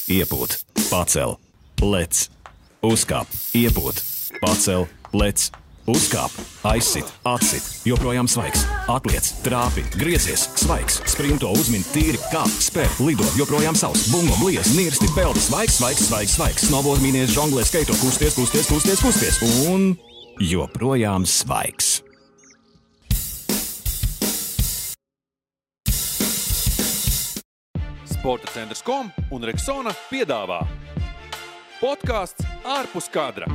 iepūt, pacel, lec, uzkāp, iepūt, pacel, lec, uzkāp, aizsit, atsit, joprojām svaigs, atliec, trāpi, griezies, svaigs, sprinto, uzmin, tīri, kāp, spēr, lido, joprojām savs, bungo, bliez, nirsti, peldi, svaigs, svaigs, svaigs, svaigs, snowboard, mīnies, žonglē, skaito, kusties, un joprojām svaigs. Sporta centrs.com un Rexona piedāvā podcasts ārpus kadra.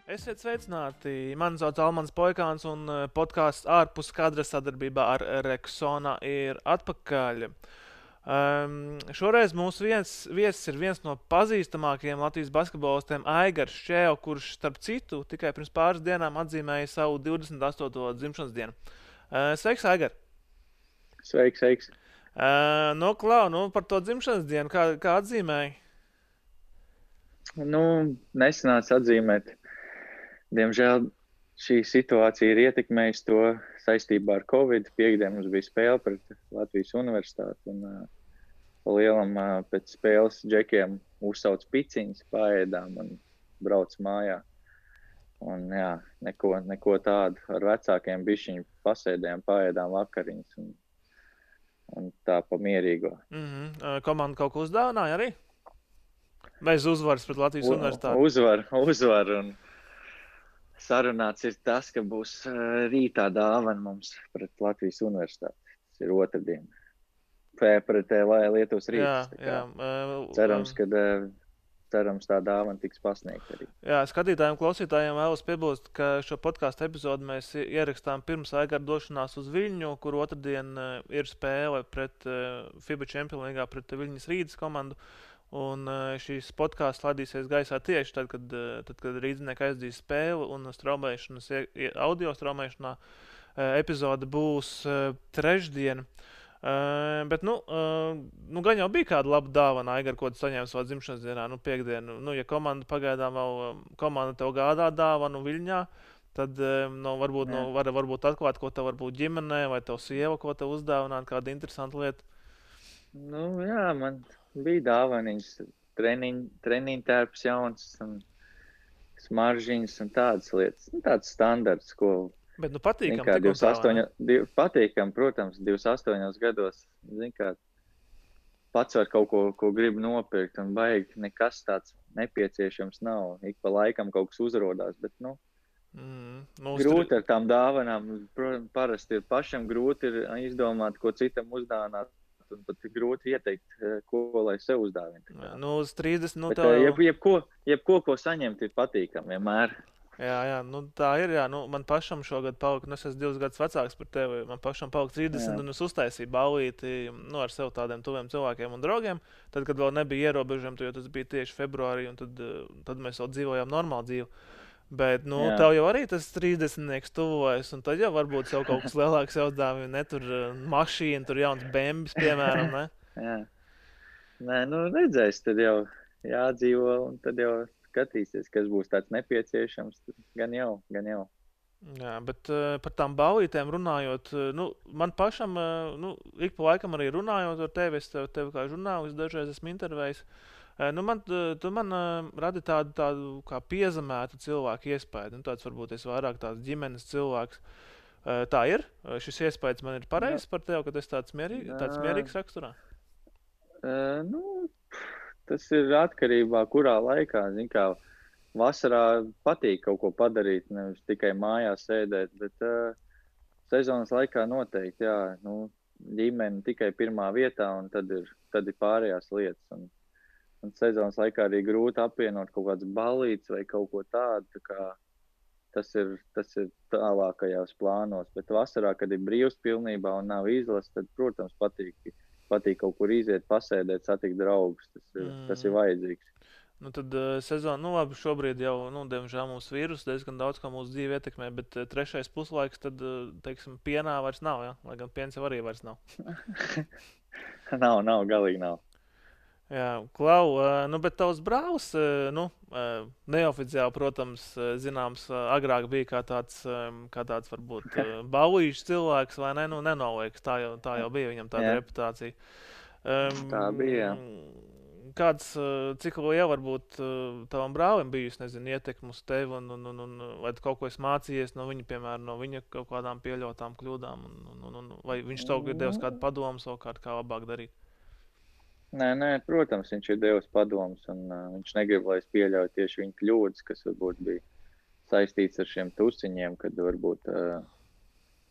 Esiet sveicināti! Mani sauc Almans Poikāns un podcasts ārpus kadra sadarbībā ar Rexona ir atpakaļ. Šoreiz mūsu viesis ir viens no pazīstamākajiem Latvijas basketbolistiem Aigars Šķēo, kurš starp citu tikai pirms pāris dienām atzīmēja savu 28. dzimšanas dienu. Sveiks, Aigar! Sveiks. Par to dzimšanas dienu, kā atzīmēji? Nesanāca atzīmēt. Diemžēl šī situācija ir ietekmējusi to saistībā ar Covid. Piektdien mums bija spēle pret Latvijas universitāti un pa lielam pēc spēles džekiem uzsauc piciņas, paēdām un brauc mājā. Un jā, neko tādu ar vecākiem bišķiņu pasēdējām, paēdām vakariņas un tā pa mierīgo. Komanda kaut ko uzdāvināja arī? Bez uzvaras pret Latvijas universitāti? Uzvar un sarunāts ir tas, ka būs rītā dāvana mums pret Latvijas universitāti. Tas ir otrdien. Pret Lietuvas Rītas. Cerams, tā dāvana tiks pasniegta arī. Jā, skatītājiem, klausītājiem vēlos piebilst, ka šo podcastu epizodu mēs ierakstām pirms Aigara došanās uz Viļņu, kur otrdien ir spēle pret FIBA Champions League pret Viļņas Rītas komandu. Un šīs podcasts ladīsies gaisā tieši tad, kad rīdzinieki aizdīs spēli un audio straumēšanā epizode būs trešdien. Bet, gan jau bija kāda laba dāvana, Aigar, ko tu saņēmi savā dzimšanas dienā, piektdienu. Ja komanda pagaidām vēl tev gādā dāvanu Viļņā, tad varbūt atklāt, ko tev varbūt ģimenē vai tev sieva, ko tev uzdāvināt, kāda interesanta lieta. Jā, man bija dāvaniņas, treniņu tērps jauns un smaržiņas un tādas lietas. Tāds standarts, ko... Bet patīkam. Patīkam, protams, 28 gados. Pats var kaut ko grib nopirkt un baigi nekas tāds nepieciešams nav. Ik pa laikam kaut kas uzrodās, bet grūti ar tām dāvanām. Parasti ir pašam grūti ir izdomāt, ko citam uzdāvināt. Un pat grūti ieteikt, ko lai sev uzdāvina. Uz 30, jebko, ko saņemt, ir patīkami vienmēr. Jā, tā ir, jā. Man pašam šogad palika, es esmu 2 gadus vecāks par tevi, man pašam palika 30, un es uztaisīju ballīti ar sev tādiem tuviem cilvēkiem un draugiem. Tad, kad vēl nebija ierobežojumi, jo tas bija tieši februārī, un tad mēs vēl dzīvojām normālu dzīvi. Bet, tev jau arī tas 30-nieks tuvojas, un tad jau varbūt sev kaut kas lielāks uzdāvina, ne tur mašīna, tur jauns bembis, piemēram, ne? Jā. Redzēs, tad jau jādzīvo, un tad jau skatīsies, kas būs tāds nepieciešams, gan jau. Jā, bet par tām ballītēm runājot, man pašam, ik pa laikam arī runājot ar tevi, es tevi kā žurnālists dažreiz esmu intervējis. Tu man radi tādu kā piezemētu cilvēku iespēju. Tāds varbūt es vairāk tāds ģimenes cilvēks. Tā ir? Šis iespējas man ir pareizs par tevi, ka es tāds mierīgs raksturā? Tas ir atkarībā, kurā laikā. Vasarā patīk kaut ko padarīt, nevis tikai mājās sēdēt, bet sezonas laikā noteikti, jā. Ģimene tikai pirmā vietā, un tad ir pārējās lietas. Un sezonas laikā arī grūti apvienot kaut kāds ballīts vai kaut ko tādu, tā kā tas ir tālākajās plānos. Bet vasarā, kad ir brīvs pilnībā un nav izlases, tad, protams, patīk kaut kur iziet, pasēdēt, satikt draugus. Tas ir vajadzīgs. Tad sezona, labi, šobrīd jau, diemžēl mūsu vīrus diezgan daudz, kā mūsu dzīve ietekmē, bet trešais puslaiks, tad, teiksim, pienā vairs nav, ja? Lai gan piens jau arī vairs nav. Nav, galīgi nav. Jā, Klau, bet tavs brālis, neoficiāli, protams, zināms, agrāk bija kā tāds varbūt baulīšs cilvēks, vai ne? Nu, nenolieks, tā jau bija viņam tāda Jā, reputācija. tā bija, jā. Cik liela varbūt tavam brālim bijusi, nezinu, ietekme uz tevi, un vai tu kaut ko esi mācījies no viņa, piemēram, no viņa kaut kādām pieļautām kļūdām, vai viņš tev ir devis kādu padomu savukārt, kā labāk darīt? Nē, protams, viņš ir devis padomus, un viņš negrib, lai es pieļauju tieši viņa kļūdas, kas varbūt bija saistīts ar šiem tusiņiem, kad varbūt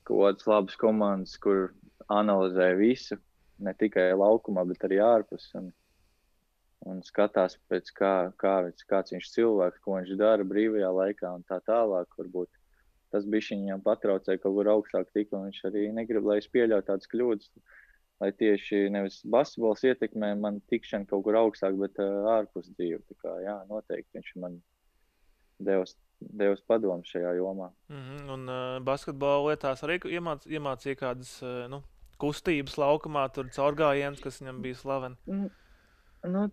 kaut kādas labas komandas, kur analizē visu, ne tikai laukumā, bet arī ārpus, un skatās pēc kāds viņš cilvēks, ko viņš dara brīvajā laikā un tā tālāk. Varbūt tas bišķiņ viņam patraucēja kaut kur augstāk tik, un viņš arī negrib, lai es pieļauju tādas kļūdas, lai tieši nevis basketbols ietekmē man tikšanu kaut kur augstāk, bet ārpus dzīvi. Tā kā, jā, noteikti viņš man devis padomu šajā jomā. Un basketbola lietās arī iemācīja kādas kustības laukumā, tur caurgājiens, kas viņam bija slaveni.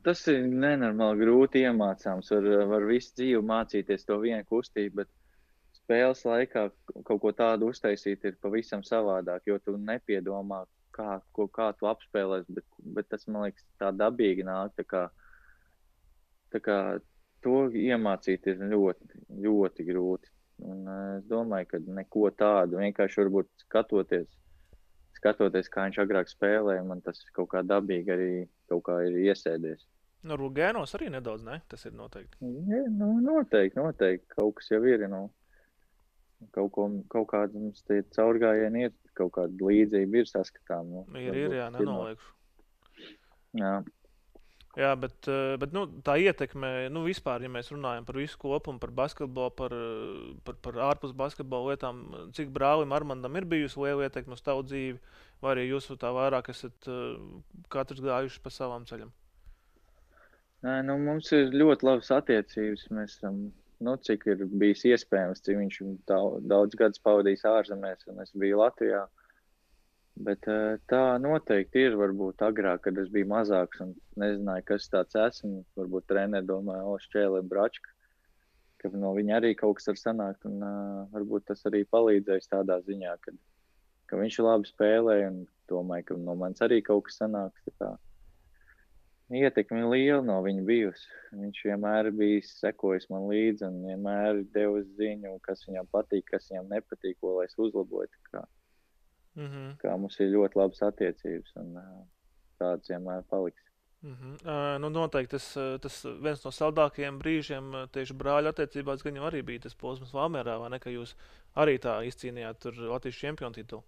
Tas ir nenormāli grūti iemācāms. Var visu dzīvi mācīties to vienu kustību, bet spēles laikā kaut ko tādu uztaisīt ir pavisam savādāk, jo tu nepiedomā, kā tu apspēlēs, bet tas, man liekas, tā dabīgi nāk. Tā kā to iemācīt ir ļoti, ļoti grūti. Un es domāju, ka neko tādu, vienkārši varbūt skatoties, kā viņš agrāk spēlēja, man tas kaut kā dabīgi arī kaut kā ir iesēdies. No Rugēnos arī nedaudz, ne? Tas ir noteikti. Ja, noteikti. Kaut kas jau ir, kaut kāda mums tie caurgājieni ir, kaut kāda līdzība ir saskatām. Jā, nenoliekšu. Jā, bet tā ietekme, vispār, ja mēs runājam par visu kopumu, par basketbolu, par ārpus basketbola lietām, cik brālim Armandam ir bijusi liela ietekme uz tavu dzīvi, vai arī jūs tā vairāk esat katrs gājuši pa savam ceļam? Mums ir ļoti labas attiecības. Mēs esam, cik ir bijis iespējams, cik viņš daudz gadus pavadījis ārzemēs, un es biju Latvijā. Bet tā noteikti ir, varbūt agrāk, kad es biju mazāks un nezināju, kas tāds esmu. Varbūt treneri domāja, Šķēle Bračka, ka no viņa arī kaut kas var sanākt. Un varbūt tas arī palīdzēs tādā ziņā, ka viņš labi spēlēja un domāju, ka no manis arī kaut kas sanāks. Ietekme liela no viņa bijusi. Viņš vienmēr bijis sekojis man līdzi un vienmēr devis ziņu, kas viņam patīk, kas viņam nepatīk, ko lai es uzlabotu. Kā mums ir ļoti labas attiecības un tāds vienmēr paliks. Noteikti tas viens no saldākajiem brīžiem tieši brāļu attiecībās gan jau arī bija tas posms Valmierā, vai ne, ka jūs arī tā izcīnījāt tur Latvijas čempionu titulu?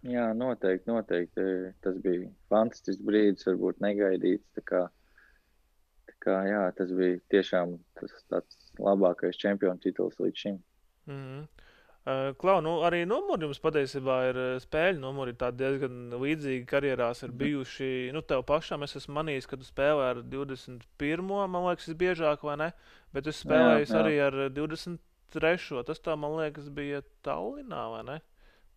Jā, noteikti. Tas bija fantastisks brīdis, varbūt negaidīts. Tā kā jā, tas bija tiešām tāds labākais čempionu tituls līdz šim. Klau, arī numuri jums patiesībā ir spēļu numuri, tādi diezgan līdzīgi karjerās ir bijuši. Tev pašam es esmu manījis, ka tu spēlē ar 21. Man liekas, biežāk, vai ne? Bet es spēlēju arī ar 23. Tas tā, man liekas, bija Tallinā, vai ne?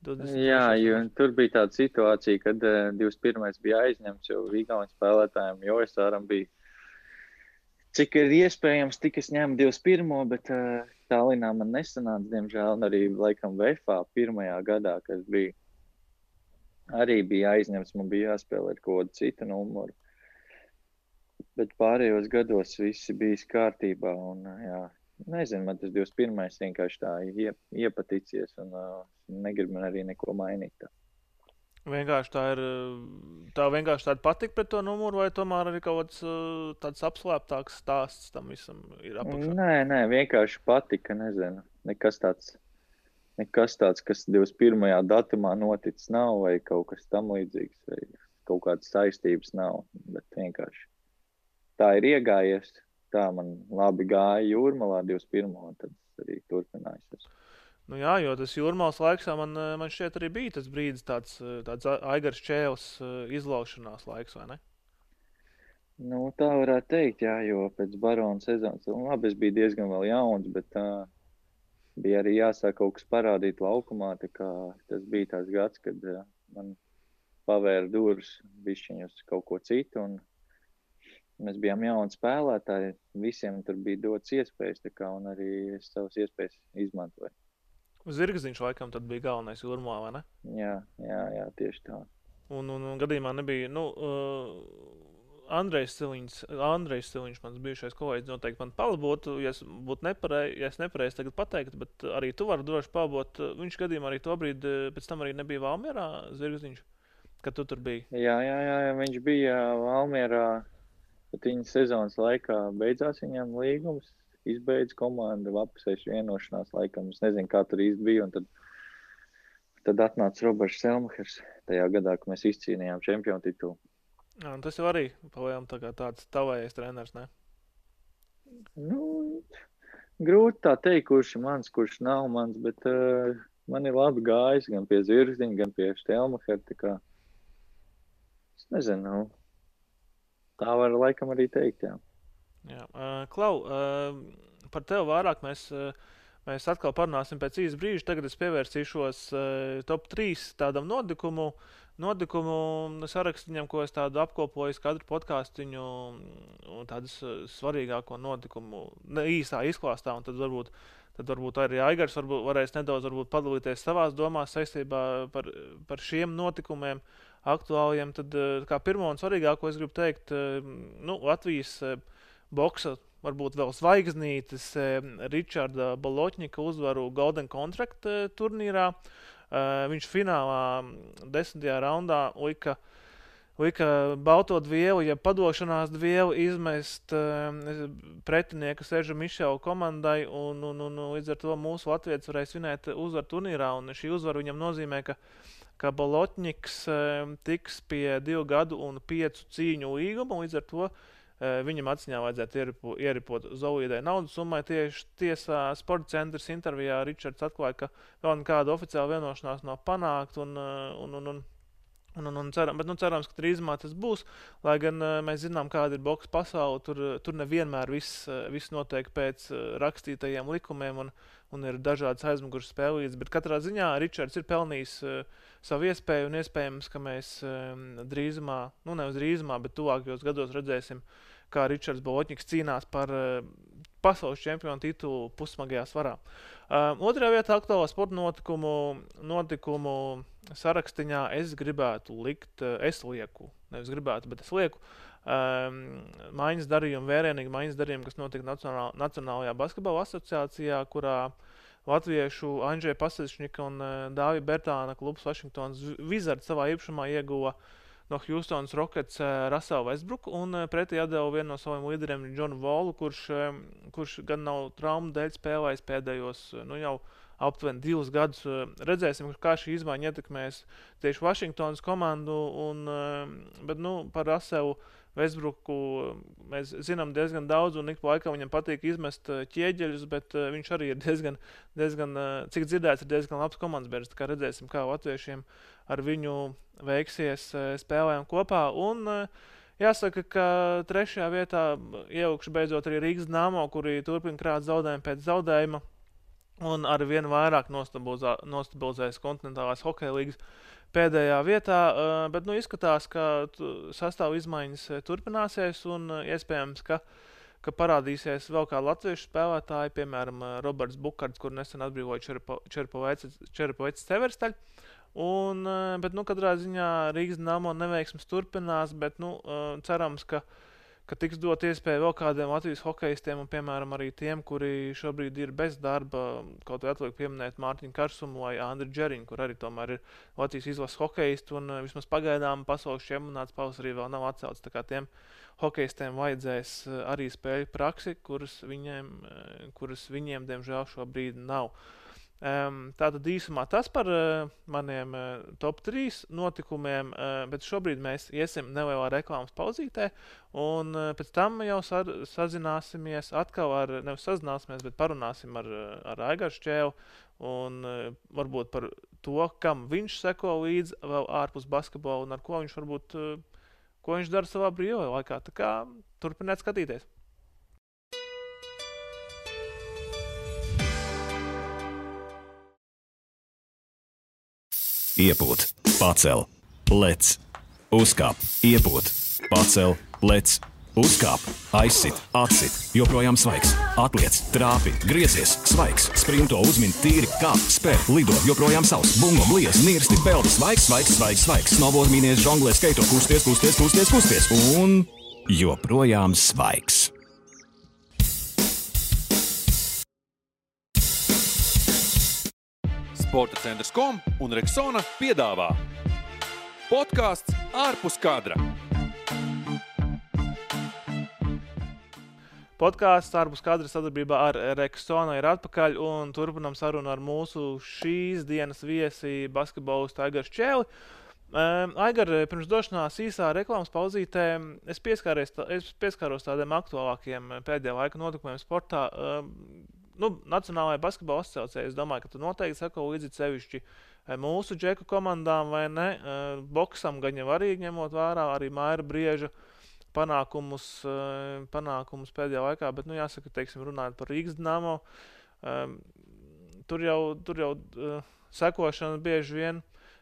23. Jā, jo tur bija tāda situācija, kad 21. bija aizņemts, jo Vigaunas spēlētājiem Joesāram bija, cik ir iespējams, tik es ņēmu 21. Bet Tallinā man nesanāca, diemžēl, un arī laikam VFA pirmajā gadā, kad arī bija aizņemts, man bija jāspēlē ar kaut kādu citu numuru. Bet pārējos gados visi bijis kārtībā, un jā, nezinu, man tas 21. vienkārši tā iepaticies, un negribu man arī neko mainīt. Vienkārši tā vienkārši tāda patika pret to numuru, vai tomēr arī kaut kāds tāds apslēptāks stāsts tam visam ir apakšā? Nē, vienkārši patika, nezinu. Nekas tāds, kas 21. datumā noticis nav, vai kaut kas tam līdzīgs, vai kaut kādas saistības nav, bet vienkārši tā ir iegājies. Tā man labi gāja Jūrmalā 21. un tad arī turpinājās. Jā, jo tas Jūrmalas laiks man šķiet arī bija tas brīdis, tāds Aigars Čēles izlaušanās laiks, vai ne? Tā varētu teikt, jā, jo pēc Barona sezonas, labi, es biju diezgan vēl jauns, bet bija arī jāsāk kaut kas parādīt laukumā, tā kā tas bija tās gads, kad man pavēra durvis bišķiņ uz kaut ko citu, un mēs bijām jauni spēlētāji, visiem tur bija dots iespējas, tā kā, un arī es savas iespējas izmantoju. Zirgziņš laikam tad bija galvenais Jūrmalā, vai ne? Jā, tieši tā. Un gadījumā nebija, Andrejs Siliņš, mans bijušais kolēģis, noteikti man palabotu, ja es būtu nepareizi tagad pateikt, bet arī tu vari droši palabot. Viņš gadījumā arī to brīdi, pēc tam arī nebija Valmierā, Zirgziņš, kad tu tur biji. Jā, viņš bija Valmierā, bet viņa sezonas laikā beidzās viņam līgums, izbeidz komanda, apusējuši vienošanās laikam, es nezinu, kā tur īsti bija, un tad atnāca Roberts Selmahers tajā gadā, kad mēs izcīnījām čempionu titulu. Jā, un tas jau arī palējām tāds tavējais treneris, ne? Grūti tā teikt, kurš ir mans, kurš nav mans, bet man ir labi gājis gan pie Zirgziņa, gan pie Selmahera, tā kā es nezinu, tā var laikam arī teikt, jā. Jā. Klau, par tevi vairāk mēs atkal parunāsim pēc īsa brīža. Tagad es pievērsīšos top 3 tādam notikumu sarakstiņam, ko es tādu apkopoju katru podcastiņu un tādus svarīgāko notikumu īsā izklāstā, un tad varbūt arī Aigars varēs nedaudz padalīties savās domās saistībā par šiem notikumiem aktuāliem. Tad kā pirmo un svarīgāko es gribu teikt, Latvijas boksa varbūt vēl zvaigznītes Ričarda Baloķņika uzvaru Golden Contract turnīrā. Viņš finālā 10. raundā lika balto dvielu, ja padošanās dvielu izmest pretinieka Seža Mišela komandai, un līdz ar to mūsu latvietis varēja svinēt uzvaru turnīrā, un šī uzvara viņam nozīmē, ka Baloķņiks tiks pie 2 gadu un 5 cīņu līguma, līdz ar to viņam atziņā vajadzētu ieripot Zolīdai naudas summai. Tieši tiesā Sporta centrs intervijā Ričards atklāja, ka vēl nekāda oficiāla vienošanās nav panākt, cerams, ka drīzumā tas būs, lai gan mēs zinām, kāda ir boksa pasaule, tur nevienmēr viss notiek pēc rakstītajiem likumiem un ir dažādas aizmugures spēlītas, bet katrā ziņā Ričards ir pelnījis savu iespēju, un iespējams, ka mēs drīzumā, nevis drīzumā, bet tuvākajos gados redzēsim, kā Ričards Baloķņiks cīnās par pasaules čempionu titulu pussmagajā svarā. Otrajā vietā aktuālā sporta notikumu sarakstiņā es lieku mājas darījumu, vērienīgi mājas darījumu, kas notika Nacionālajā basketbola asociācijā, kurā latviešu Andžeja Pasečņika un Dāvija Bertāna klubs Washingtons Wizards savā īpašumā ieguva no Houstonas Rockets Russellu Westbrooku, un pretī atdeva vienu no saviem līderiem Johnu Wallu, kurš gan nav traumu dēļ spēlējis pēdējos jau aptuveni 2 gadus. Redzēsim, kā šī izmaiņa ietekmēs tieši Washingtonas komandu, bet par Russellu Westbrooku mēs zinām diezgan daudz, un ik pa laikam viņam patīk izmest ķieģeļus, bet viņš arī ir diezgan, cik dzirdēts, ir diezgan labs komandas bērns. Tā kā redzēsim, kā latviešiem ar viņu veiksies spēlēm kopā. Un jāsaka, ka 3. vietā ievilkšu beidzot arī Rīgas Dynamo, kuri turpina krāt zaudējumu pēc zaudējuma, un ar vien vairāk nostabilizējas kontinentālās hokeja līgas pēdējā vietā, bet izskatās, ka sastāvu izmaiņas turpināsies, un iespējams, ka parādīsies vēl kādi latviešu spēlētāji, piemēram, Roberts Bukards, kur nesen atbrīvoja Čerepovets Severstaļ. Bet katrā ziņā Rīgas Dynamo neveiksmes turpinās, bet cerams, ka tiks dot iespēju vēl kādiem Latvijas hokejistiem, un piemēram arī tiem, kuri šobrīd ir bez darba, kaut vai atliek pieminēt Mārtiņu Karsumu vai Andriu Džeriņu, kur arī tomēr ir Latvijas izlases hokejisti, un vismaz pagaidām pasaules čempionāts pavasarī vēl nav atcelts, tā kā tiem hokejistiem vajadzēs arī spēļu praksi, kuras viņiem diemžēl šobrīd nav. Tātad īsumā tas par maniem top 3 notikumiem, bet šobrīd mēs iesim nelielā reklāmas pauzītē, un pēc tam jau sazināsimies atkal bet parunāsim ar Aigaru Šķēlu, un varbūt par to, kam viņš seko līdz vēl ārpus basketbola, un ar ko viņš dara savā brīvajā laikā. Tā kā turpiniet skatīties. Iepūt, pacel, lec, uzkāp, iepūt, pacel, lec, Uzkāp, aizsit, atsit, joprojām svaigs. Atliec, trāpi, griezies, svaigs. Sprinto, uzmin, tīri, kāp, spēr, lido, joprojām savs. Bungo, bliez, nirsti, peldi, svaigs, svaigs, svaigs, svaigs. Snowboard, mīnies, žonglē, skaito, kusties, kusties, kusties, kusties. Un joprojām svaigs. Sporta centrs.com un Rexona piedāvā podcasts ārpus kadra. Podkāsts ārpus kadra sadarbībā ar Rexona ir atpakaļ un turpinām sarunu ar mūsu šīs dienas viesi basketbolistu Aigaru Čēli. Aigar, pirms došanās īsā reklāmas pauzītē es pieskāros tādiem aktuālākiem pēdējā laika notikumiem sportā. Nacionālajā basketbola asociācijā es domāju, ka tu noteikti sako līdzi sevišķi mūsu džeku komandām vai ne. Boksam gan jau arī ņemot vērā arī Maira Brieža panākumus pēdējā laikā, bet, jāsaka, teiksim, runājot par Rīgas Dinamo, tur jau sekošana bieži vien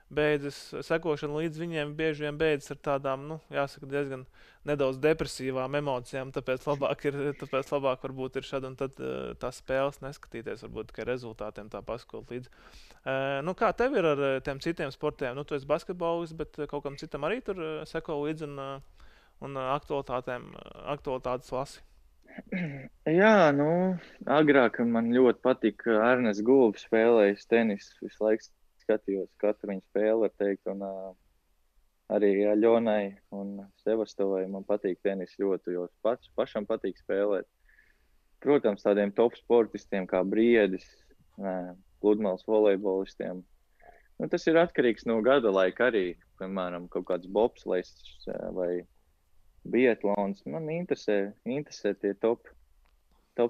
sekošana līdz viņiem bieži vien beidzas ar tādām, jāsaka, diezgan nedaudz depresīvām emocijām, tāpēc labāk varbūt ir šad un tad tās spēles neskatīties, varbūt tikai rezultātiem tā paskot līdz. Kā tev ir ar tiem citiem sportiem? Tu esi basketbolists, bet kaut kam citam arī tur seko līdz un aktualitātes lasi? Jā, agrāk man ļoti patika Ernests Gulbis spēlējis tenis, visu laiku skatījos katru viņu spēli, var teikt, un arī Ļonai un Sevastovai man patīk tenis ļoti, jo pašam patīk spēlēt. Protams, tādiem top sportistiem kā Briedis, pludmales volejbolistiem. Tas ir atkarīgs no gada laika arī, piemēram, kaut kāds bobslejs vai biatlons. Man interesē tie top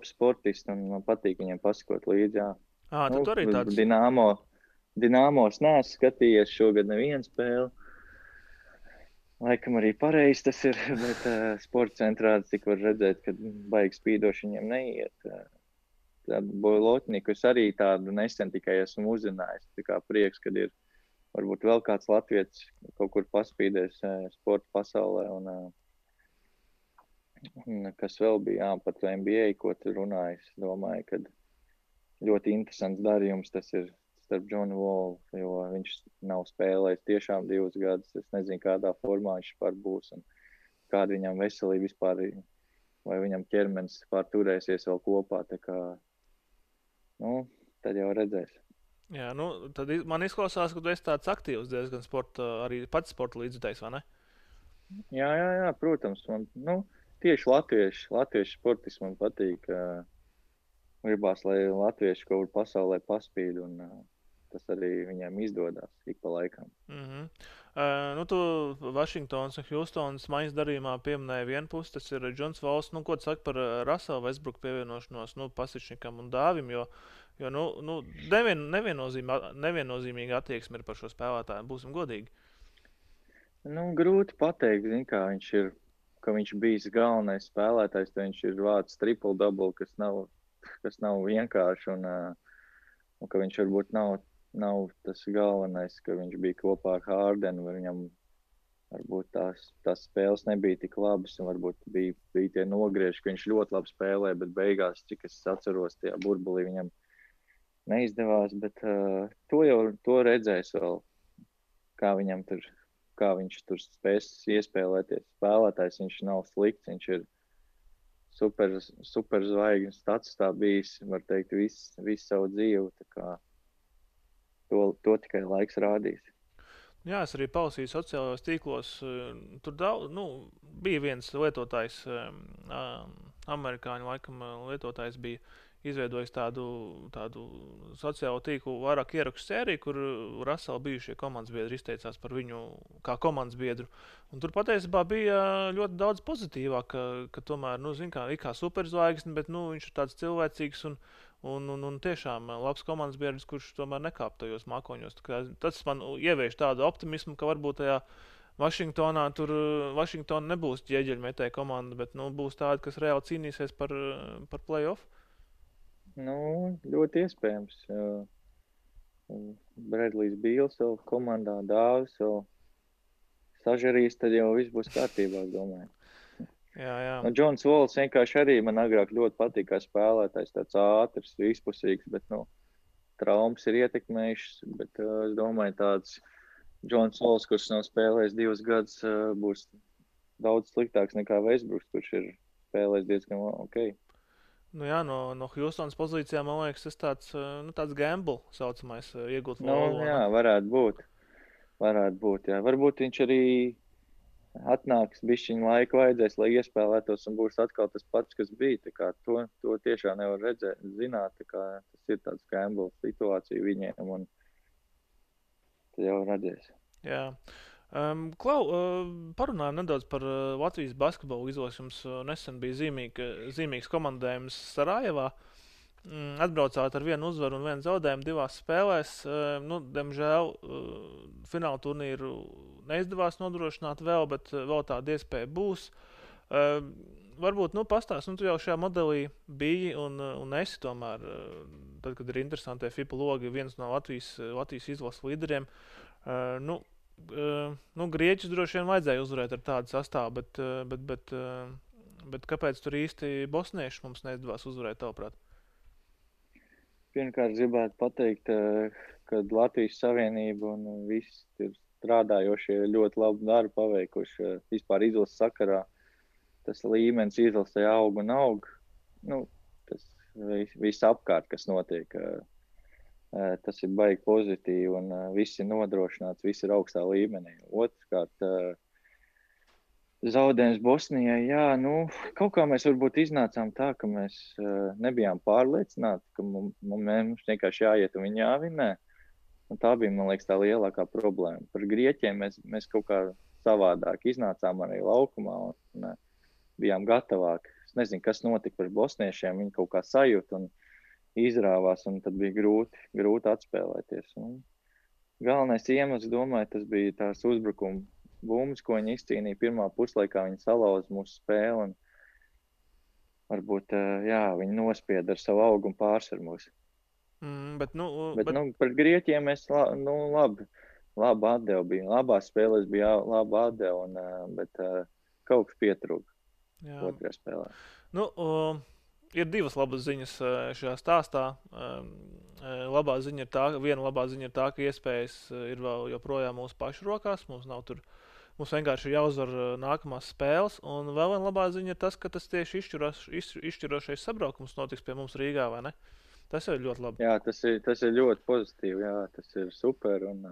sportisti, un man patīk viņiem pasakot līdzi, jā. Tu arī tāds? Dinamos neesmu skatījies šogad nevienu spēli. Laikam arī pareizi tas ir, bet sporta centrā tik var redzēt, ka baigi spīdoši viņiem neiet. Tādu Bojlotniku es arī tādu nesen tikai esmu uzzinājis. Tā kā prieks, kad ir varbūt vēl kāds latvietis kaut kur paspīdēs sporta pasaulē. Un kas vēl bija, par to NBA, ko tu runājis. Domāju, ka ļoti interesants darījums tas ir starp John Wall, jo viņš nav spēlējis tiešām 2 gadus. Es nezinu, kādā formā viņš par būs un kāda viņam veselība vispār, vai viņam ķermenis turēsies vēl kopā. Tā kā, tad jau redzēs. Jā, tad man izklausās, ka tu esi tāds aktīvs diezgan arī pats sporta līdzjutējs, vai ne? Jā, protams. Man, tieši latviešu sportisti man patīk. Gribās, lai latvieši kaut kur pasaulē paspīd un tas arī viņiem izdodas ik pa laikam. Tu Vašingtonas un Hjustonas maiņas darījumā pieminēja vienu pusi, tas ir Džons Valls. Ko tu saki par Russell Westbrook pievienošanos Pasičnikam un Dāvim, jo neviennozīmīga attieksme ir par šo spēlētāju, būsim godīgi. Grūti pateikt, ka viņš bijis galvenais spēlētājs, tad viņš ir vācis triple-double, kas nav vienkārši, un ka viņš varbūt nav tas galvenais, ka viņš bija kopā ar Hardenu, vai viņam varbūt tās spēles nebija tik labas, un varbūt bija tie nogrieži, ka viņš ļoti labi spēlē, bet beigās, cik es atceros, tajā burbulī viņam neizdevās, bet to redzēs vēl, kā viņš tur spēs iespēlēties. Spēlētājs viņš nav slikts, viņš ir super zvaigznes stats tā bijis, var teikt, visu savu dzīvi, tā kā to tikai laiks rādīs. Jā, es arī palasīju sociālajos tīklos, tur bija viens lietotājs, amerikāņu laikam lietotājs bija izveidojis tādu sociālo tīklu vairāk ierakstu sēriju, kur Russell bijušie komandas biedri izteicās par viņu kā komandas biedru. Un tur patiesībā bija ļoti daudz pozitīvāk, ka tomēr, ir kā superzvaigzne, bet viņš ir tāds cilvēcīgs un tiešām labs komandas biedrs, kurš tomēr nekāp tajos mākoņos. Tas man ievieš tādu optimismu, ka varbūt tajā Vašingtonā Vašingtona nebūs ķieģeļmetēja komanda, bet būs tāda, kas reāli cīnīsies par play-off. Ļoti iespējams. Bredlijs Bīls vēl komandā, Dāvis vēl sažarīs, tad jau viss būs kārtībā, es domāju. Jā. Nu, Džons Vols vienkārši arī man agrāk ļoti patīk kā spēlētājs, tāds ātrs, vispusīgs, bet, traumas ir ietekmējušas, bet es domāju, tāds Džons Vols, kurš nav spēlējis 2 gadus, būs daudz sliktāks nekā Westbrooks, kurš ir spēlējis diezgan ok. Nu jā, no Houstonas pozīcijām, man liekas, tas tāds gamble saucamais iegūt Nu, volu. jā, varētu būt, jā. Varbūt viņš arī atnāks, bišķiņu laiku vajadzēs, lai iespēlētos un būs atkal tas pats, kas bija. Tā kā to tiešām nevar zināt, tā kā tas ir tāds gamble situācija viņiem un tad jau redzēs. Jā. Klau, parunājam nedaudz par Latvijas basketbolu izlases. Jums nesen bija zīmīgs komandējums Sarajevā. Atbraucāt ar 1 uzvaru un 1 zaudējumu 2 spēlēs. Diemžēl fināla turnīru neizdevās nodrošināt vēl, bet vēl tāda iespēja būs. Varbūt pastāst, tu jau šajā modelī biji un esi tomēr, tad, kad ir interesantie FIBA logi, viens no Latvijas izlases līderiem. Grieķus droši vien vajadzēja uzvarēt ar tādu sastāvu, bet kāpēc tur īsti bosnieši mums neizdevās uzvarēt, tavuprāt? Pirmkārt, gribētu pateikt, ka Latvijas Savienība un visi ir strādājošie ļoti labu darbu paveikuši. Vispār izlases sakarā tas līmenis izlasē aug un aug. Tas viss apkārt, kas notiek, tas ir baigi pozitīvi un viss ir nodrošināts, viss ir augstā līmenī. Otrkārt, zaudējums Bosnijai, jā, kaut kā mēs varbūt iznācām tā, ka mēs nebijām pārliecināti, ka mums vienkārši jāiet un viņi jāvinē. Un tā bija, man liekas, tā lielākā problēma. Par Grieķiem mēs kaut kā savādāk iznācām arī laukumā un bijām gatavāki. Es nezinu, kas notika par bosniešiem, viņi kaut kā sajūta un izrāvās, un tad bija grūti atspēlēties. Un galvenais iemesls, domāju, tas bija tās uzbrukuma bumbas, ko viņi izcīnīja pirmā puslaikā, viņi salauza mūsu spēli un varbūt, viņi nospieda ar savu augu un pārsvar mūs. Bet par Grieķiem mēs labi atdevu bija. Labās spēlēs bija laba atdeva, bet kaut kas pietrūka otrajā spēlē. Ir 2 labas ziņas šajā stāstā. Viena labā ziņa ir tā, ka iespējas ir vēl joprojām mūsu pašu rokās. Mums vienkārši ir jāuzvar nākamās spēles. Un vēl viena labā ziņa ir tas, ka tas tieši izšķirošais sabraukums notiks pie mums Rīgā, vai ne? Tas jau ir ļoti labi. Jā, tas ir ļoti pozitīvi. Jā, tas ir super. Un,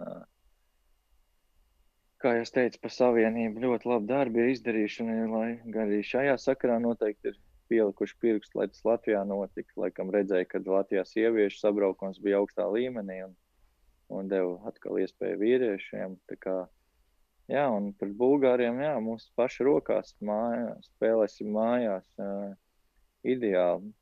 kā jau teicu, par Savienību ļoti labi darbi ir izdarījuši. Lai arī šajā sakarā noteikti ir pielikuši pirkstu, lai tas Latvijā notika. Laikam redzēja, ka Latvijā sieviešu sabraukums bija augstā līmenī un deva atkal iespēju vīriešiem. Tā kā, jā, un par Bulgāriem, jā, mūsu paši rokās spēlēsim mājās. Ideāli.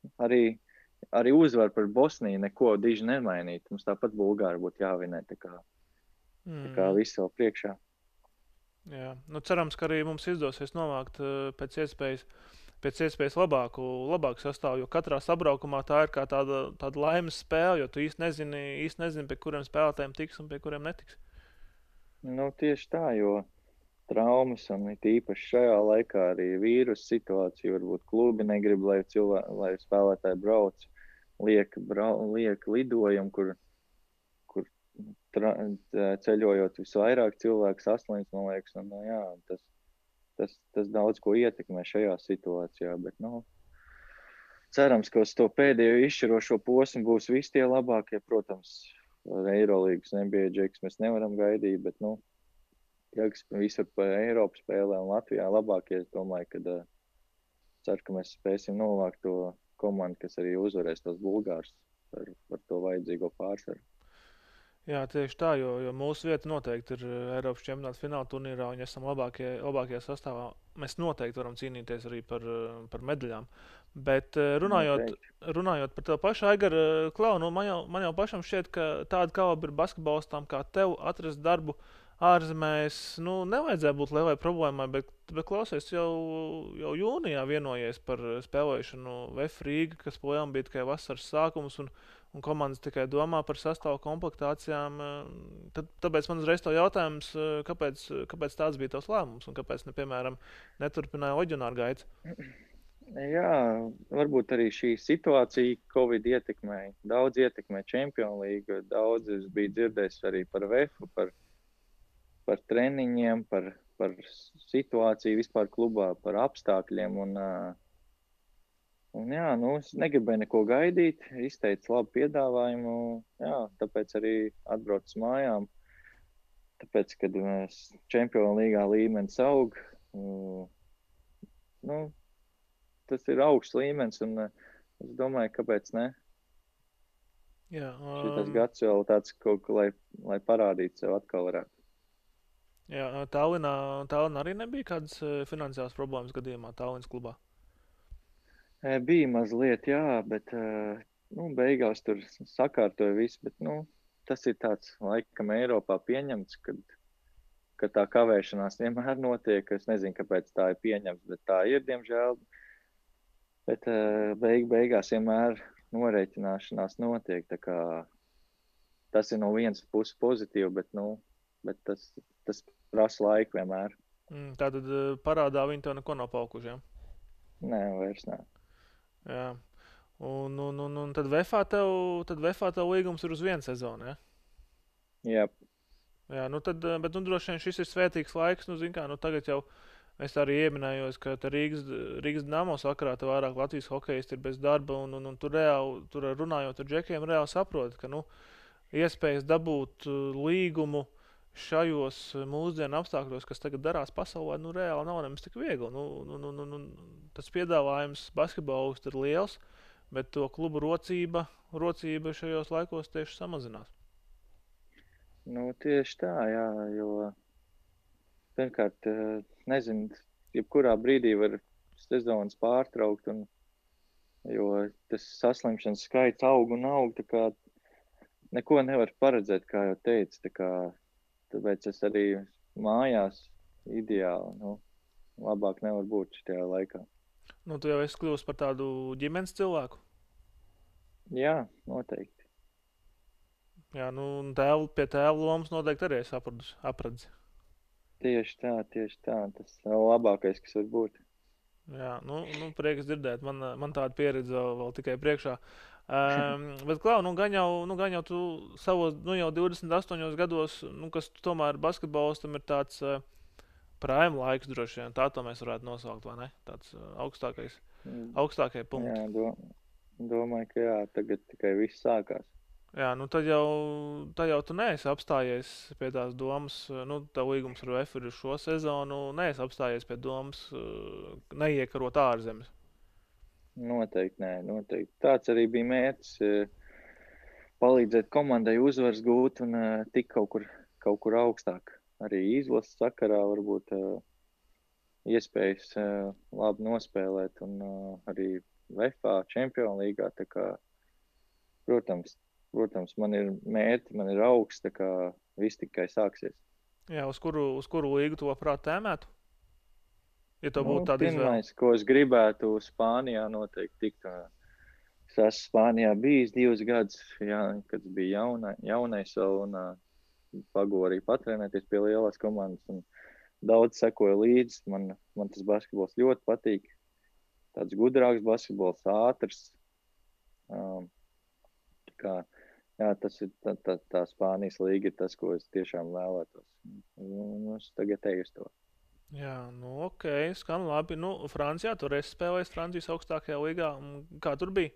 Arī uzvar par Bosniju neko diži nemainīt. Mums tāpat Bulgāri būtu jāvinē. Tā kā viss vēl priekšā. Jā, cerams, ka arī mums izdosies novākt pēc iespējas labāku sastāvu, jo katrā sabraukumā tā ir kā tāda laimes spēle, jo tu īsti nezini, pie kuriem spēlētājiem tiks un pie kuriem netiks. Tieši tā, jo traumas un īpaši šajā laikā arī vīrusu situācija, varbūt klubi negrib, lai spēlētāji brauc, liek lidojumu, kur ceļojot visvairāk cilvēks, 8, man liekas, un jā, tas daudz ko ietekmē šajā situācijā, bet, cerams, ka uz to pēdējo izšķirošo posmu būs visi tie labākie, protams, Eirolīgas NBA džeks mēs nevaram gaidīt, bet, kas visur pa Eiropu spēlē un Latvijā labākie, es domāju, ka ceru, ka mēs spēsim novākt to komandu, kas arī uzvarēs tos Bulgārus par to vajadzīgo pārsvaru. Jā, tieši tā, jo mūsu vieta noteikti ir Eiropas čempionāta fināla turnīrā, un ja esam labākie sastāvā, mēs noteikti varam cīnīties arī par medaļām. Bet runājot par tev pašu, Aigar, Klau, man jau pašam šķiet, ka tāda kalibra basketbolistām kā tev atrast darbu ārzemēs, nevajadzēja būt lielai problēmai, bet klausies, jau jūnijā vienojies par spēlēšanu VF Rīga, kas plējām bija tikai vasaras sākums, un komandas tikai domā par sastāvu komplektācijām, tāpēc man uzreiz to jautājums, kāpēc tāds bija tavs lēmums un kāpēc, piemēram, neturpināja Oģionāru gaitas? Jā, varbūt arī šī situācija Covid ietekmēja. Daudz ietekmē Champions League, daudz es biju dzirdējis arī par VEFu, par treniņiem, par situāciju vispār klubā, par apstākļiem. Un jā, es negribēju neko gaidīt, izteicu labu piedāvājumu, jā, tāpēc arī atbraucu mājām. Tāpēc, kad mēs Champions League līmenis aug, tas ir augsts līmenis, un es domāju, kāpēc ne. Jā, Šitas gads vēl tāds, lai parādītu sev atkal varētu. Jā, Tallinā arī nebija kādas finansiālas problēmas gadījumā Tallinas klubā? Bija mazliet, jā, bet beigās tur sakārtoja visu, bet tas ir tāds laikam Eiropā pieņemts, ka tā kavēšanās vienmēr notiek. Es nezinu, kāpēc tā ir pieņemts, bet tā ir, diemžēl. Bet beigās vienmēr norēķināšanās notiek, tā kā tas ir no vienas puses pozitīvi, bet tas prasa laiku vienmēr. Tātad parādā viņi to neko nav paukuši, jā? Nē, vairs nē. Jā, un tad VEFā tev līgums ir uz 1 sezonu, ja? Jā. Jā, bet droši vien šis ir svētīgs laiks, tagad jau es arī ieminējos, ka Rīgas Dinamo sakarā te vairāk Latvijas hokejisti ir bez darba, un tur runājot ar džekiem, reāli saprot, ka, iespējas dabūt līgumu šajos mūsdienu apstākļos, kas tagad darās pasaulē, reāli nav nemaz tik viegli. Tas piedāvājums basketbolistu ir liels, bet to klubu rocība šajos laikos tieši samazinās. Tieši tā, jā, jo pirmkārt, nezinu, jebkurā brīdī var sezonas pārtraukt, jo tas saslimšanas skaits aug un aug, tā kā neko nevar paredzēt, kā jau teicu, tāpēc es arī mājās ideāli, labāk nevar būt šajā laikā. Tu jau esi kļuvis par tādu ģimenes cilvēku? Jā, noteikti. Jā, un pie tēva lomas noteikti arī esi apradzi. Tieši tā, tas ir labākais, kas var būt. Jā, prieks dzirdēt, man tāda pieredze vēl tikai priekšā. Bet, Klau, gan jau tu savos, jau 28 gados, kas tomēr basketbolistam ir tāds prime laiks droši vien, tā to mēs varētu nosaukt, vai ne? Tāds augstākie punkti. Jā, domāju, ka jā, tagad tikai viss sākās. Jā, tad jau tu neesi apstājies pie tās domas, tev līgums ar VEF ir šo sezonu, neesi apstājies pie domas neiekarot ārzemes. Noteikti, nē, noteikti. Tāds arī bija mērķis, palīdzēt komandai uzvaras gūt un tik kaut kur augstāk. Arī izlases sakarā varbūt iespējas labi nospēlēt un arī VEFā, Champions League. Tā kā, protams, man ir mērķi, man ir augsts, tā kā viss tikai sāksies. Jā, uz kuru līgu tu labprāt tēmētu? Ja to būtu tāda izvēle. Pirmais, ko es gribētu Spānijā noteikti tikt. Es esmu Spānijā bijis 2 gadus, kad bija jaunais vēl un pagoju arī patrenēties pie lielās komandas. Un daudz sekoju līdzi. Man tas basketbols ļoti patīk. Tāds gudrāks basketbols, ātrs. Tas ir tā Spānijas līga ir tas, ko es tiešām vēlētos. Es tagad eju uz to. Jā, ok, skan labi. Francijā tur esi spēlējis Francijas augstākajā līgā. Kā tur bija?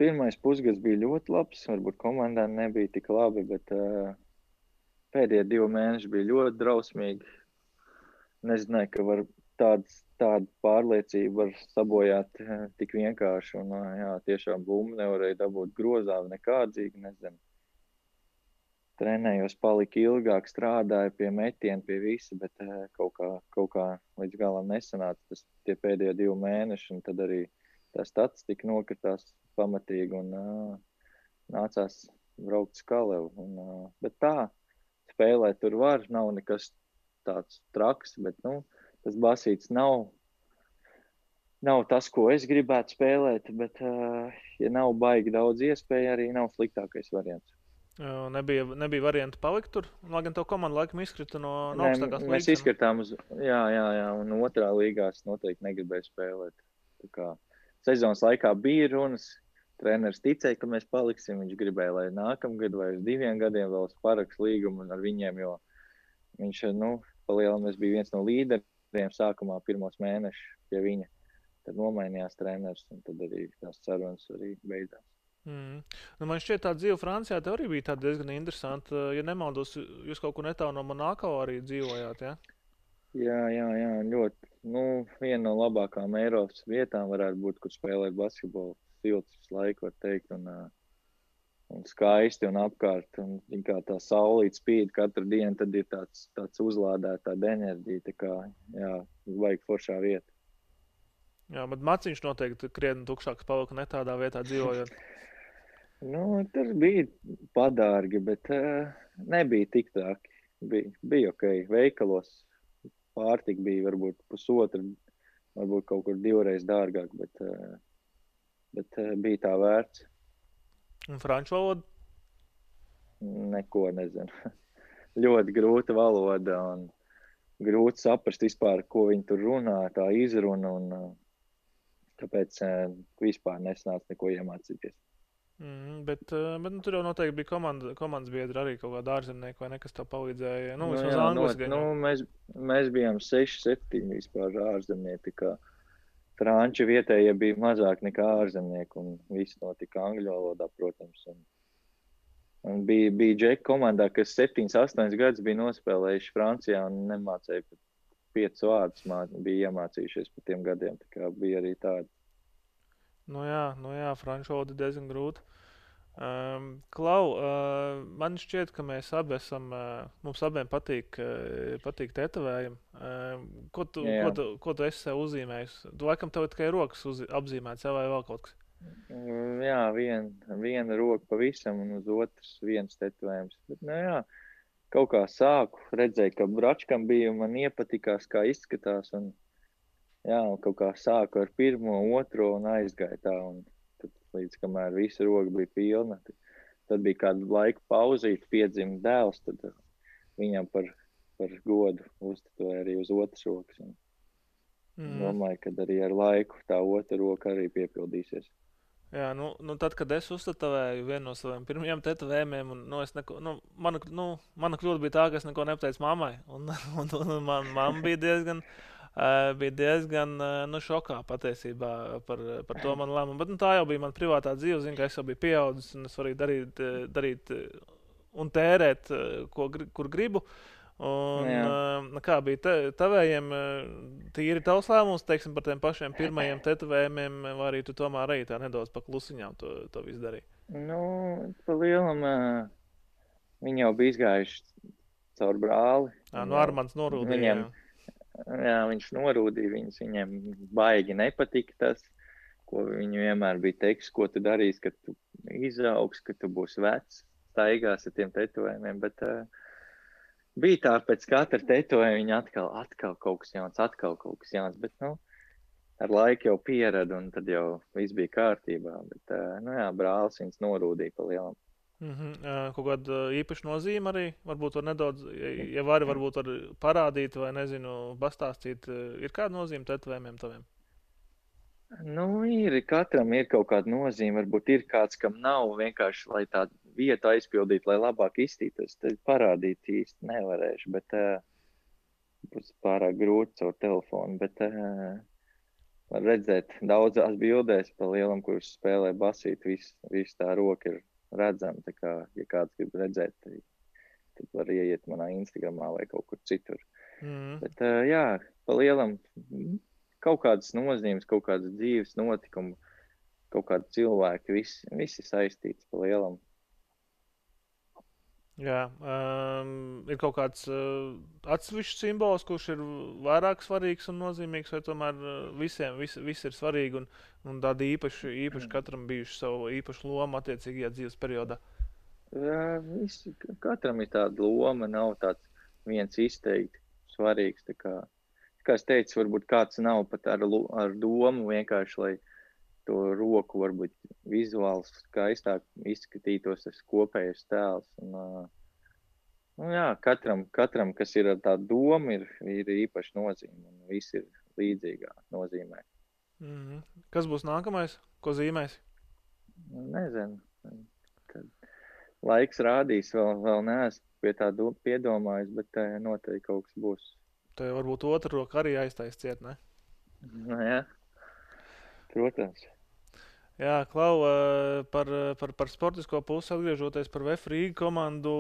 Pirmais pusgads bija ļoti labs. Varbūt komandā nebija tik labi, bet pēdējie 2 mēneši bija ļoti drausmīgi. Nezināju, ka tādu pārliecību var sabojāt tik vienkārši. Un tiešām bumbu nevarēja dabūt grozā nekādzīgi, nezinu. Trenējos, palika ilgāk, strādāju pie metiena, pie visa, bet kaut kā līdz galam nesanāca tie pēdējie 2 mēneši, un tad arī tā statistika nokritās pamatīgi, un nācās braukt uz Kalevu. Bet tā, spēlēt tur var, nav nekas tāds traks, bet tas basīts nav nav tas, ko es gribētu spēlēt, bet, ja nav baigi daudz iespēju, arī nav sliktākais variants. Nebija variantu palikt tur, lai gan tev komanda laikam izkrita no Nē, augstākās līgas. mēs izskatām un otrā līgā es noteikti negribēju spēlēt. Tā kā sezonas laikā bija runas, treneris ticēja, ka mēs paliksim, viņš gribēja, lai nākamgad vai uz 2 gadiem vēl parakst līgumu ar viņiem, jo viņš, palielinājums bija viens no līderiem sākumā pirmos mēnešus pie viņa. Tad nomainījās treneris, un tad arī tās sarunas arī beidzās. Man šķiet, tā dzīve Francijā tev arī bija diezgan interesanta. Ja nemaldos, jūs kaut kur netālu no Monako arī dzīvojāt, ja? Jā, ļoti. Viena no labākām Eiropas vietām varētu būt, kur spēlēt basketbolu. Silts visu laiku, var teikt, un skaisti un apkārt. Un kā tā saulīt spīd katru dienu, tad ir tāds uzlādēta tāda enerģija. Tā kā, vajag foršā vieta. Jā, bet maciņš noteikti krietni tukšāks palika ne tādā vietā dzīvojot. Tur bija padārgi, bet nebija tik traki. Bija ok. Veikalos pārtika bija varbūt pusotra, varbūt kaut kur 2 reizes dārgāk, bet bija tā vērts. Un franču valoda? Neko nezinu. Ļoti grūta valoda un grūti saprast vispār, ko viņi tur runā, tā izruna, un tāpēc vispār nesnāca neko iemācīties. Bet tur jau noteikti bija komandas biedri arī kaut kāda ārzemnieka vai nekas tā palīdzēja. Mēs bijām 6-7 vispār ārzemnieki, kā franči vietējie bija mazāk nekā ārzemnieki, un viss notika angļu valodā, protams. Un bija džeki komandā, kas 7-8 gadus bija nospēlējuši Francijā un nemācēja pat 5 vārdus, bija iemācījušies pa tiem gadiem, tā kā bija arī tādi. Jā, franču valoda diezgan grūta. Klau, man šķiet, ka mēs abi mums abiem patīk tetovējumi. Ko tu esi sev uzzīmējis? Tu laikam tev tikai rokas apzīmēts, vai vēl kaut kas? Jā, viena roka pavisam un uz otras viens tetovējums. Bet, kaut kā sāku, redzēju, ka bračkam bija un man iepatikās, kā izskatās. Un kaut kā sāku ar 1., 2. un aizgāju tā. Un tad, līdz kamēr visa roka bija pilna, tad bija kādu laiku pauzīt, piedzima dēls, tad viņam par godu uztetoja arī uz otras rokas. Domāju, ka arī ar laiku tā otra roka arī piepildīsies. Jā, tad, kad es uztetovēju vienu no saviem pirmajiem tetovējumiem, mana kļūda bija tā, ka es neko nepateicu mammai. Un mamma bija diezgan šokā patiesībā par to manu lēmumu. Bet tā jau bija mana privātā dzīve, ka es jau biju pieaudzis un es varēju darīt un tērēt, kur gribu. Un kā bija tavējiem, tīri tavs lēmums, teiksim, par tiem pašiem pirmajiem tetovējumiem, vai arī tu tomēr arī tā nedaudz pa klusiņām to visu darīji? Pa lielam viņi jau bija izgājuši caur brāli. Armands norūdīja. Viņš norūdīja viņus, viņiem baigi nepatika tas, ko viņi vienmēr bija teiks, ko tu darīsi, kad tu izaugs, kad tu būsi vecs, staigās ar tiem tetovējumiem, bet bija tā, pēc katra tetovējuma viņa atkal kaut kas jauns, bet, ar laiku jau pieradu, un tad jau viss bija kārtībā, bet, brālis viņus norūdīja pa lielam. Kaut kāda īpaša nozīme arī, varbūt var nedaudz, ja varbūt var parādīt vai, nezinu, pastāstīt, ir kāda nozīme tetovējumiem taviem? Katram ir kaut kāda nozīme, varbūt ir kāds, kam nav, vienkārši, lai tā vietu aizpildītu, lai labāk izstītos, tad parādīt īsti nevarēšu, bet būs pārāk grūti caur telefonu, bet var redzēt daudzās bildēs pa lielam, kurš spēlē basīt, viss tā roka ir redzama, tā kā, ja kāds grib redzēt, tad var ieiet manā Instagramā vai kaut kur citur. Bet pa lielam kaut kādas nozīmes, kaut kādas dzīves notikumu, kaut kādi cilvēki, visi saistīts pa lielam. Jā, ir kaut kāds atsevišķs simbols, kurš ir vairāk svarīgs un nozīmīgs, vai tomēr visiem viss ir svarīgi un tādi īpaši katram bijuši savu īpašu lomu attiecīgajā dzīves periodā? Katram ir tāda loma, nav tāds viens izteikti svarīgs, tā kā kā es teicu, varbūt kāds nav pat ar domu vienkārši, lai to roku varbūt vizuāli skaistāk izskatītos tas kopējais tēls. Un, jā, katram, kas ir ar tādu domu, ir īpaši nozīme, un viss ir līdzīgā nozīmē. Kas būs nākamais? Ko zīmēs? Nezinu. Kad laiks rādīs, vēl neesmu pie tā piedomājis, bet noteikti kaut kas būs. Tev varbūt otra roka arī aiztais ciet, ne? Jā, protams. Jā, Klau, par sportisko pusi atgriežoties par VF Rīga komandu,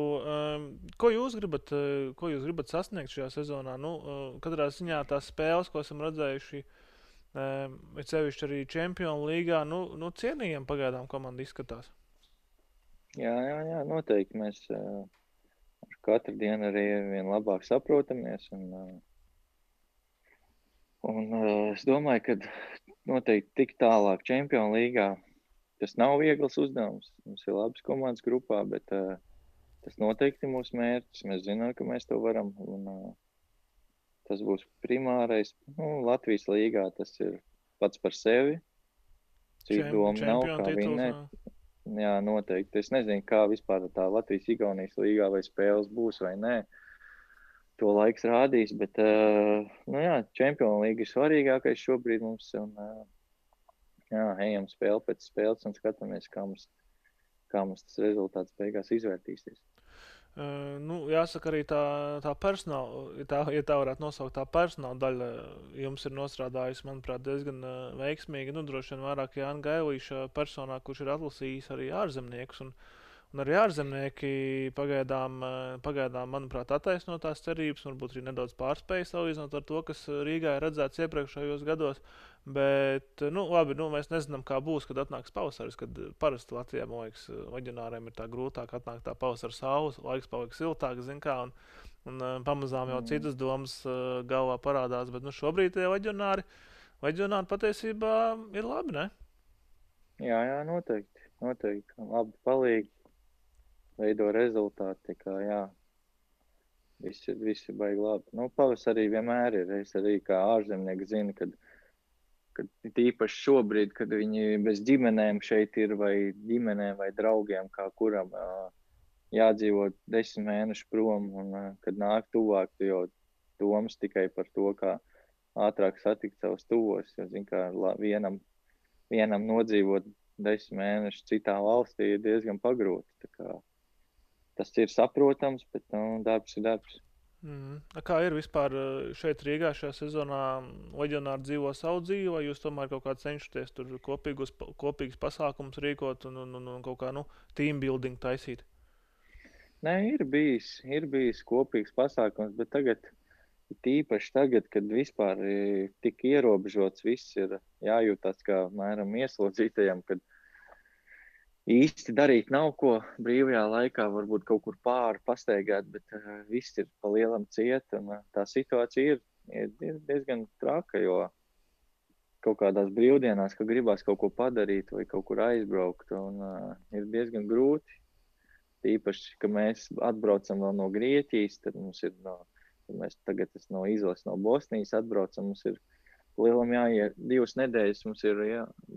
ko jūs gribat sasniegt šajā sezonā? Katrā ziņā tās spēles, ko esam redzējuši, ir sevišķi arī Čempionu līgā, cienījam pagaidām komanda izskatās. Jā, noteikti mēs katru dienu arī vien labāk saprotamies, un es domāju, ka noteikti tik tālāk Čempionu līgā tas nav viegls uzdevums. Mums ir labas komandas grupā, bet tas noteikti ir mūsu mērķis. Mēs zinām, ka mēs to varam, un tas būs primārais. Latvijas līgā tas ir pats par sevi. Citu domu nav, kā vinēt. Jā, noteikti. Es nezinu, kā vispār tā Latvijas-Igaunijas līgā vai spēles būs vai nē. To laiks rādīs, bet Čempionu līga ir svarīgākais šobrīd mums. Un, ejam spēli pēc spēles un skatāmies, kā mums tas rezultāts beigās izvērtīsies. Jāsaka arī tā personāla, ja tā varētu nosaukt, tā personāla daļa jums ir nostrādājusi, manuprāt, diezgan veiksmīgi. Droši vien vairāk Jāna Gailīša personā, kurš ir atlasījis arī ārzemniekus. Un arī ārzemnieki pagaidām, manuprāt, attaisno tās cerības, varbūt arī nedaudz pārspēja salīdzinot ar to, kas Rīgā ir redzēts iepriekšējos gados. Bet, labi, mēs nezinām, kā būs, kad atnāks pavasaris, kad parasti Latvijā, man liekas, vaģionāriem ir tā grūtāk atnākt tā pavasara saules, laiks paliek siltāks, zin kā, un pamazām jau citas domas galvā parādās, bet šobrīd tie vaģionāri patiesībā ir labi, ne? Jā, noteikti. Labi palīgi, veido rezultāti, tā kā, jā. Viss ir baigi labi. Pavasarī vienmēr ir, es arī kā ārzemnieki zinu, kad tīpaši šobrīd, kad viņi bez ģimenēm šeit ir, vai ģimenēm, vai draugiem, kā kuram jādzīvo 10 mēnešu prom, un kad nāk tuvāk, tu jau domas tikai par to, kā ātrāk satikt savus tuvos, jo, zin, kā vienam nodzīvot 10 mēnešus citā valstī ir diezgan pagrūti. Tā kā tas ir saprotams, bet darbs ir darbs. Kā ir vispār šeit Rīgā šajā sezonā? Leģionāri dzīvo savu dzīvi, vai jūs tomēr kaut kā cenšaties tur kopīgus pasākumus rīkot un kaut kā team building taisīt? Nē, ir bijis kopīgs pasākums, bet tīpaši tagad, kad vispār tik ierobežots, viss ir jājūtās kā mēram ieslodzītajam, kad īsti darīt nav ko brīvajā laikā, varbūt kaut kur pāri pastaigāt, bet viss ir pa lielam ciet, un tā situācija ir diezgan traka, jo kaut kādās brīvdienās, ka gribās kaut ko padarīt vai kaut kur aizbraukt, un ir diezgan grūti. Īpaši, ka mēs atbraucam vēl no Grieķijas, tad mums ir mēs tagad no izlases no Bosnijas atbraucam, mums ir lielam jāiet 2 nedēļas,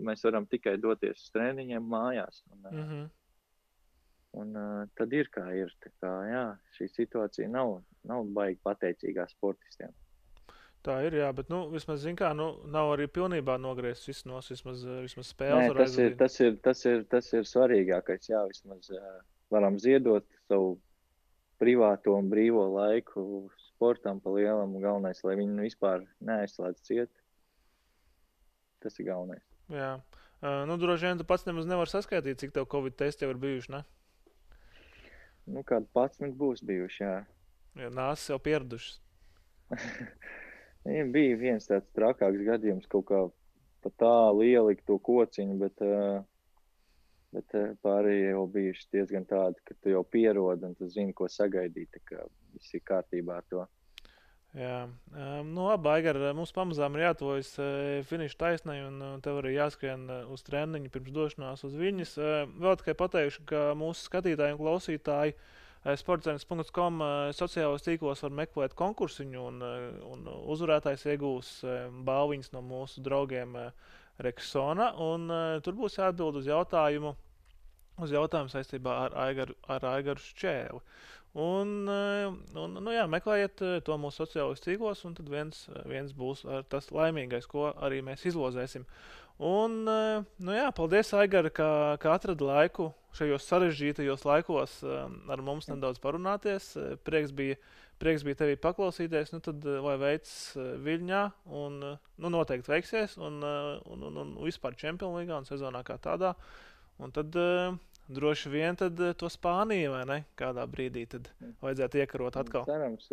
mēs varam tikai doties uz treniņiem mājās. Un tad ir kā ir. Tā kā, šī situācija nav baigi pateicīgā sportistiem. Tā ir, jā, bet vismaz, zin kā, nav arī pilnībā nogriezt vismaz spēles var aizvadīt. Tas ir svarīgākais, jā, vismaz varam ziedot savu privāto un brīvo laiku sportam pa lielam, galvenais, lai viņi vispār neaizslēdz ciet. Tas ir galvenais. Jā. Droši vien tu pats nemaz nevar saskaitīt, cik tev Covid testi jau ir bijuši, ne? Kādi 11 būs bijuši, jā. Jā, nāsas jau pieradušas. Bija viens tāds trakāks gadījums, kaut kā pa tālu ielikt to kociņu, bet pārējie jau bijuši diezgan tādi, ka tu jau pierodi un tu zini, ko sagaidīt, tā kā viss ir kārtībā ar to. Jā, labi, Aigar, mums pamazām ir jātuvojas finiša taisnai un tev arī jāskrien uz treniņu pirms došanās uz Viļņas. Vēl tikai pateikšu, ka mūsu skatītāji un klausītāji Sportzenes.com sociālos tīklos var meklēt konkursiņu, un uzvarētājs iegūs balviņas no mūsu draugiem Rexona, un tur būs jāatbild uz jautājumu saistībā ar Aigaru Šķēli. Un meklējiet to mūsu sociālos tīklos, un tad viens būs tas laimīgais, ko arī mēs izlozēsim. Un, paldies, Aigara, ka atradi laiku šajos sarežģītajos laikos ar mums nedaudz parunāties. Prieks bija tevi paklausīties, tad lai veids Viļņā, un noteikti veiksies, un vispār Champions Līgā un sezonā kā tādā. Un tad droši vien tad to Spāniju, vai ne? Kādā brīdī tad vajadzētu iekarot atkal. Cerams,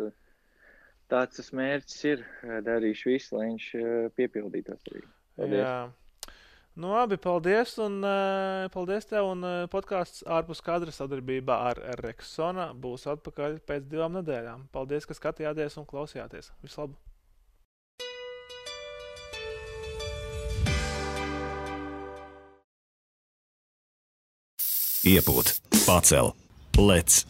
tāds tas mērķis ir. Darīšu visu, lai viņš piepildītos arī. Paldies. Jā. Labi, paldies, un paldies tev, un podcasts ārpus kadra sadarbībā ar Rexona būs atpakaļ pēc 2 nedēļām. Paldies, ka skatījāties un klausījāties. Vislabāk! Iepūt, pacel, lec,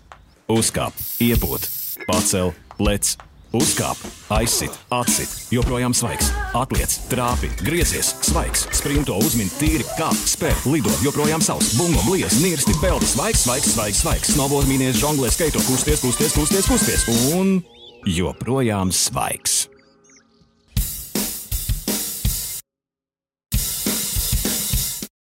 uzkāp, iepūt, pacel, lec, uzkāp, aizsit, atsit, joprojām svaigs, atliec, trāpi, griezies, svaigs, sprinto, uzmin, tīri, kāp, spēr, lido, joprojām savs, bungo, bliez, nirsti, peldi, svaigs, snowboard, mīnies, žonglē, skaito, kusties, un joprojām svaigs.